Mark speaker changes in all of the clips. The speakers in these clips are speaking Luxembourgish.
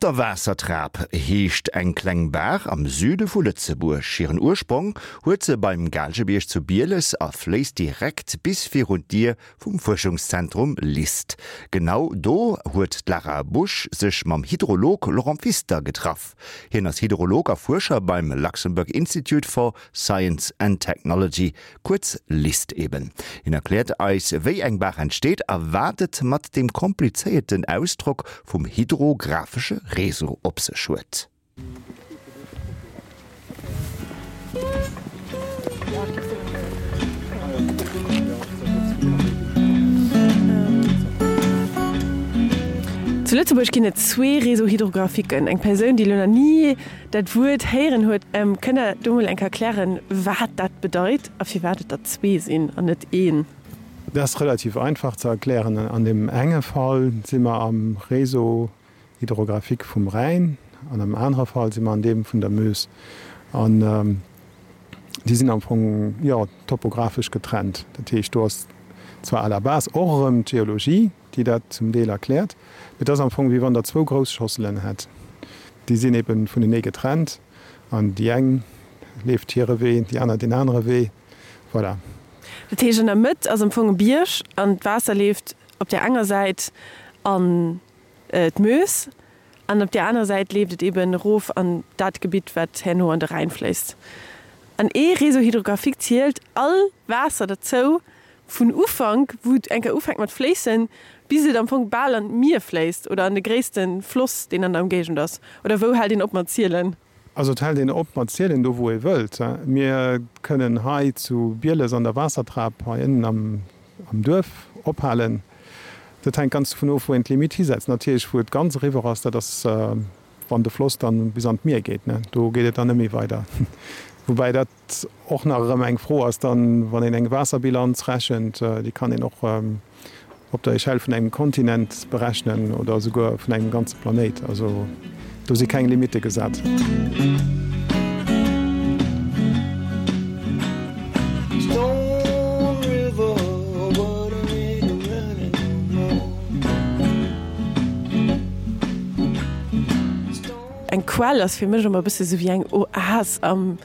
Speaker 1: Op der Waassertrap heescht eng kleng Baach am Süde vu Lëtzebuerg. Hiren Ursprong huet se beim Gaalgebierg zu Bieles a fléisst direkt bis virun d'Dier vum Fuerschungszentrum LIST. Genau do huet d'Lara Busch sech mam Hydrolog Laurent Pfister getraff. Hien ass Hydrolog a Fuerscher beim Luxembourg Institute for Science and Technology, kuerz LIST eben. Hien erkläert eis, wéi eng Baach entsteet a wat et mat deem komplizéierten Ausdrock vum hydrographesche Réseau op sech huet.
Speaker 2: Zu Lëtzebuerg ginn et zwee Réseaux hydrographiquen. Eng Persoun, déi elo nach ni dat Wuert héieren huet, kënnt Der do mol eng Kéier erklären, wat dat bedeit a firwat et der zwee sinn an net een?
Speaker 3: Dat ass relativ einfach ze erklären. An deem enge Fall si mer am Réseau hydrographique vum Rhäin an am anere Fall si mer an deem vun der Meuse. An déi sinn am Fong, jo, topographesch getrennt. Dat heescht, do ass zwar à la base och erëm d'Geologie, déi dat zum Deel erkläert. Mee et ass am Fong, wéi wann Der zwou grouss Schosselen hätt. Déi sinn ebe vunenee getrennt an déi eng leeft hire Wee, déi aner deen anere Wee. Voilà.
Speaker 2: Dat heescht, an der Mëtt ass am Fong e Bierg an d'Waasser leeft op där enger Säit an d'Meuse an op där anerer Säit leeft et eben erof an dat Gebitt, wat herno an de Rhäin fléisst. An ee Réseau hydrographique zielt all Waasser derzou, Vun Ufank, wou et eng Kéier ufänkt mat fléissen, bis et am Fong bal an d'Mier fléisst oder an de gréisste Floss, deen an der Ëmgéigend ass? Oder wou hält een op mat zielen?
Speaker 3: Also et hält een op mat zielen do, wou ee wëllt. Mir kënnen hei zu Bieles an der Waassertrap hei ënnen am Duerf ophalen. Dat hänkt ganz dovun of, wou een d'Limitt hisetzt. Natierlech, wou et ganz eriwwer ass, dat ass, wann de Floss dann bis an d'Mier geet, do geet et dann net méi weider. Woubäi dat och nach erëm eng Fro ass dann, wann een eng Waasserbilanz rechent, déi kann een och op der Echelle vun engem Kontinent berechnen oder esouguer vun engem ganze Planéit. Also do si keng Limitte gesat.
Speaker 2: Eng Quell ass fir mech ëmmer e bësse sou wéi eng Oas am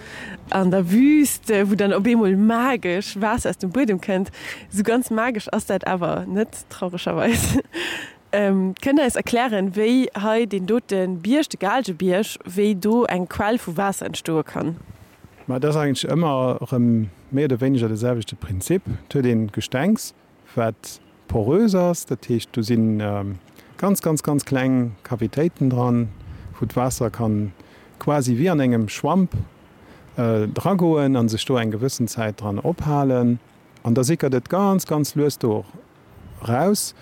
Speaker 2: An der Wüst, wou dann op eemol magesch Waasser aus dem Buedem kënnt. Esou ganz magesch ass dat awer net, trauregerweis. Kënnt Der eis erklären, wéi hei deen dote Bierg, de Gaalgebierg, wéi do eng Quell vu Waasser entstoe kann?
Speaker 3: Ma et ass eigentlech ëmmer erëm méi oder wéineger de selwechte Prinzip. Et huet een Gestengs, wat porös ass, dat heescht do si ganz, ganz, ganz kleng Cavitéiten dran, wou d'Waasser kann quasi wéi an engem Schwamp dragoen a sech do eng gewëssen Zäit dran ophalen. An da sickert et ganz, ganz lues do raus.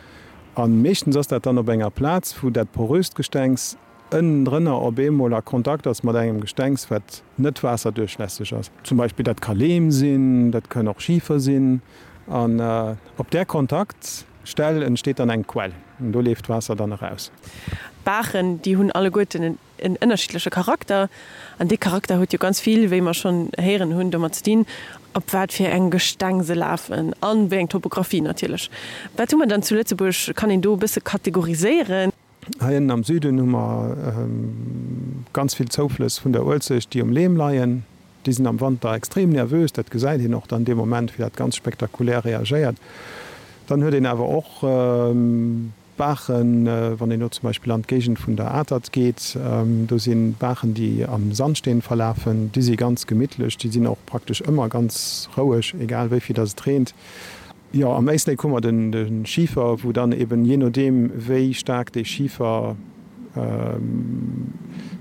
Speaker 3: A meeschtens ass dat dann op enger Plaz, wou dat poröst Gestengs ënnendrënner op eemol a Kontakt ass mat engem Gestengs, wat net waasserduerchlässeg ass. Zum Beispill dat ka Leem sinn, dat kënn och Schifer sinn. An op där Kontaktstell entsteet dann eng Quell an do leeft d'Waasser dann eraus.
Speaker 2: D'Baachen, déi hunn alleguerten en ënnerschiddleche Charakter. An dee Charakter huet jo ganz vill, wéi mer schonn héieren hunn, domat ze dinn, op wat fir engem Gesteng se lafen an wéi eng Topographie natierlech. Wat hu mer dann zu Lëtzebuerg? Kann een do e bësse kategoriséieren?
Speaker 3: Hei ënnen am Süden hu mer ganz vill Zouflëss vun der Uelzecht, déi um Leem leien. Déi sinn am Wanter extrem nervös, dat gesäit een och dann dee Moment, wéi dat ganz spektakulär reagéiert. Dann huet een awer och Baachen, wann een elo zum Beispill an d'Géigend vun der Atert geet, do si Baachen, déi am Sandsteen verlafen, déi si ganz gemittlech, déi sinn och praktesch ëmmer ganz roueg, egal wéi vill datt et reent. Jo, am Éislek hu mer de Schifer, wou dann eben, jee nodeem wéi staark dee Schifer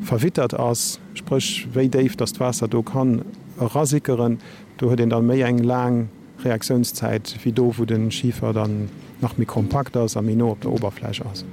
Speaker 3: verwittert ass, spréch wéi déif datt d'Waasser do kann erasickeren, do huet een da méi eng laang Reaktiounszäit wéi do, wou de Schifer dann nach méi kompakt ass a méi no op der Oberfläch ass.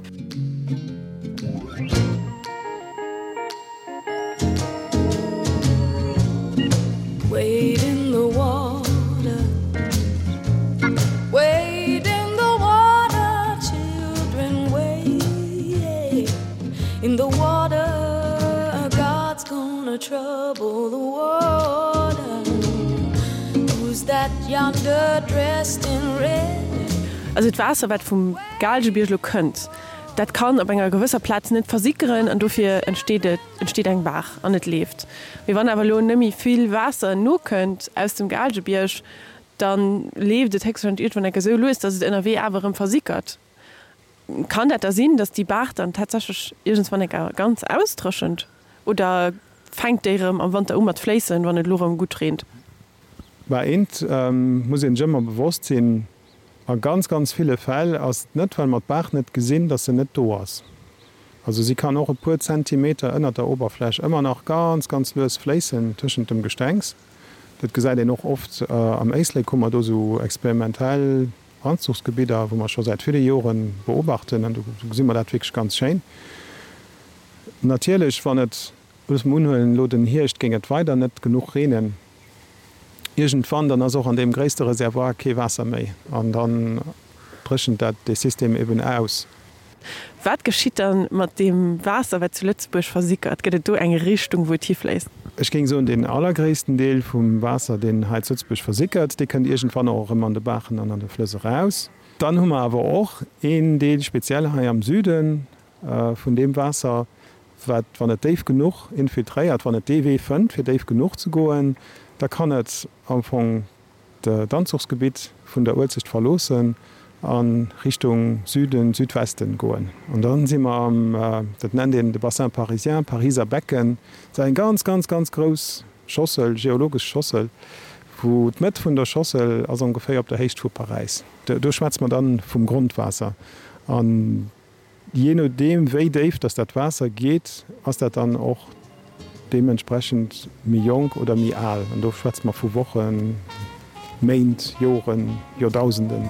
Speaker 2: Also d'Waasser wat vum Gaalgebierg elo kënnt. Dat kann op enger gewësser Plaz net versickeren an dofir entsteet et, entsteet eng Baach an et leeft. Mee wann awer elo net méi vill Waasser nokënnt aus dem Gaalgebierg, da leeft et héchstwahrscheinlech iergendwann enke sou lues, datt et ënnerwee awer erëm versickert. Kann dat da sinn, datt déi Baach dann tatsächlech iergendswann enker ganz ausdréchent? Oder fänkt déi erëm am Wanter u mat fléissen, wann et elo erëm gutt reent?
Speaker 3: Mä eent muss een sech ëmmer bewosst sinn, A ganz, ganz ville Fäll ass et net, well mer d'Baach net gesinn, datt se net do ass. Also si kann och e puer Zentimeter ënnert der Oberfläch ëmmer nach ganz, ganz lues fléissen tëschent dem Gestengs. Dat gesäit een och oft am Éislek, hu mer do esou experimentell Anzuchsgebidder, wou mer scho säit ville Jore beobachten, an do gesi mer dat wierklech ganz schéin. Natierlech, wann et, loosse mer unhuelen, elo den Hierscht géing et weider net genuch reenen, iergendwann, dann ass och an deem gréisste Reservoir kee Waasser méi an dann dréchent dat dee System eben aus.
Speaker 2: Wat geschitt dann mat deem Waasser, wat zu Lëtzebuerg versickert? Gëtt et do eng Richtung, wou et hifléisst?
Speaker 3: Ech géing soen, deen allergréissten Deel vum Waasser, deen hei zu Lëtzebuerg versickert, dee kënnt iergendwann och erëm an de Baachen an an de Flëss eraus. Dann hu mer awer och een Deel, speziell hei am Süde vun deem Waasser, wat, wann et déif genuch infiltréiert, wann et dee Wee fënnt, fir déif genuch ze goen, da kann et am Fong d'Anzuchsgebitt vun der Uelzecht verloossen a Richtung Süden, Südwesten goen. An da si mer am, dat nennt een de Bassin parisien, Pariser Becken. Dat ass eng ganz, ganz, ganz grouss Schossel, geologesch Schossel, wou d'Mëtt vun der Schossel ass ongeféier op der Héicht vu Paräis. Do schwätze mer dann vum Grondwaasser. An Jee nodeem wéi déif dass dat Waasser geet, ass dat dann och deementsprechend méi jonk oder méi al. An do schwätze mer vu Wochen, Méint, Joren, Joerdausenden.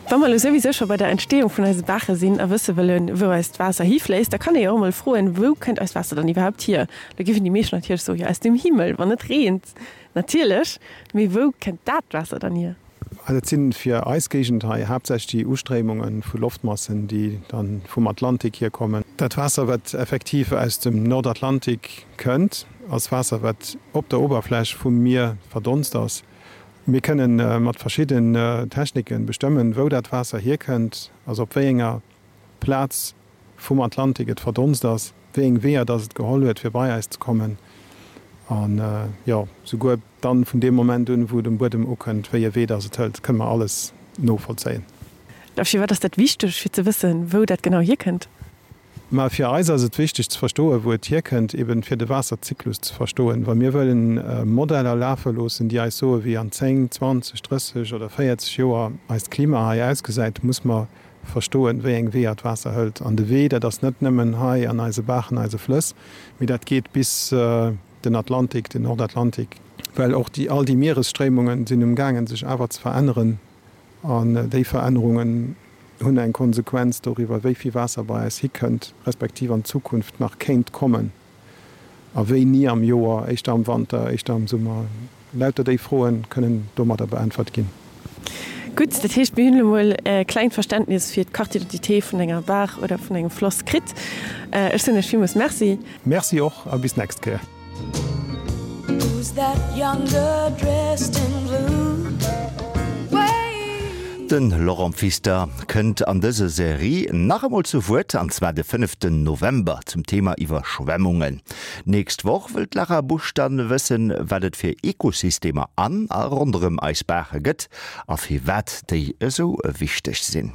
Speaker 2: Wa mer elo souwisou scho bei der Entstehung vun eise Baache sinn a wësse wëllen, wou eist Waasser hifléisst, da kann ee jo och emol froen, Wou kënnt eist Waasser dann iwwerhaupt hier? Da géifen déi meescht natierlech soen, Jo, aus dem Himmel, wann et reent. Natierlech, mee wou kënnt dat Waasser dann hier?
Speaker 3: Dat si fir eis Géigend hei haaptsächlech déi Ustréimunge vu Loftmassen, déi da vum Atlantik hierkommen. Dat Waasser, wat effektiv aus dem Nordatlantik kënnt, ass Waasser, wat op der Oberfläch vum Mier verdonst ass. Mir kënne mat verschidden Technike bestëmmen, wou dat Waasser hierkënnt, also op wéi enger Plaz vum Atlantik et verdonst ass, wéi eng Weeër dass et geholl huet, fir bei eis ze kommen an, jo, souguer dann vun deem Moment un, wou et um Buedem ukënnt, wéi e Wee dass et hëlt, kënne mer alles novollzéien.
Speaker 2: A firwat ass dat wichteg, fir ze wëssen, wou dat genau hierkënnt?
Speaker 3: Mä fir eis ass et wichteg ze verstoen, wou et hierkënnt, eben fir de Waasserzyklus ze verstoen. Wa mir wëllen Modeller lafe loossen, déi eis soen, wéi an 10, 20, 30 oder 40 Joer eist Klima hei ausgesäit, muss mer verstoen, wéi eng Weeër d'Waasser hëlt. An de Wee, dat ass net nëmmen hei an eise Baachen, eise Flëss, mee dat geet bis den Atlantik, den Nordatlantik, well och déi, all déi Mieresstréimungen sinn umgaangen, sech awer ze veränneren. An déi Verännerungen hunn eng Konsequenz doriwwer, wéi vill Waasser bei eis hikënnt, respektiv an Zukunft nach kéint kommen. A wéini am Joer, éischter am Wanter, éischter am Summer? Lauter déi Froe kënnen domadder beäntwert ginn.
Speaker 2: Gutt, dat heescht, mir hunn elo mol e klengt Verständnis fir d'Carte d'identité vun enger Baach oder vun engem Floss kritt. Ech soen Iech villmools Merci.
Speaker 3: Merci och a bis d'nächst Kéier.
Speaker 1: De Laurent Pfister kënnt an dëser Serie nach emol zu Wuert, an zwar de fënneften November zum Thema Iwwerschwemmungen. D'nächst Woch wëll d'Lara Busch dann wëssen, wat et fir Ekosystemer an a ronderëm eis Baache gëtt a firwat déi esou wichteg sinn.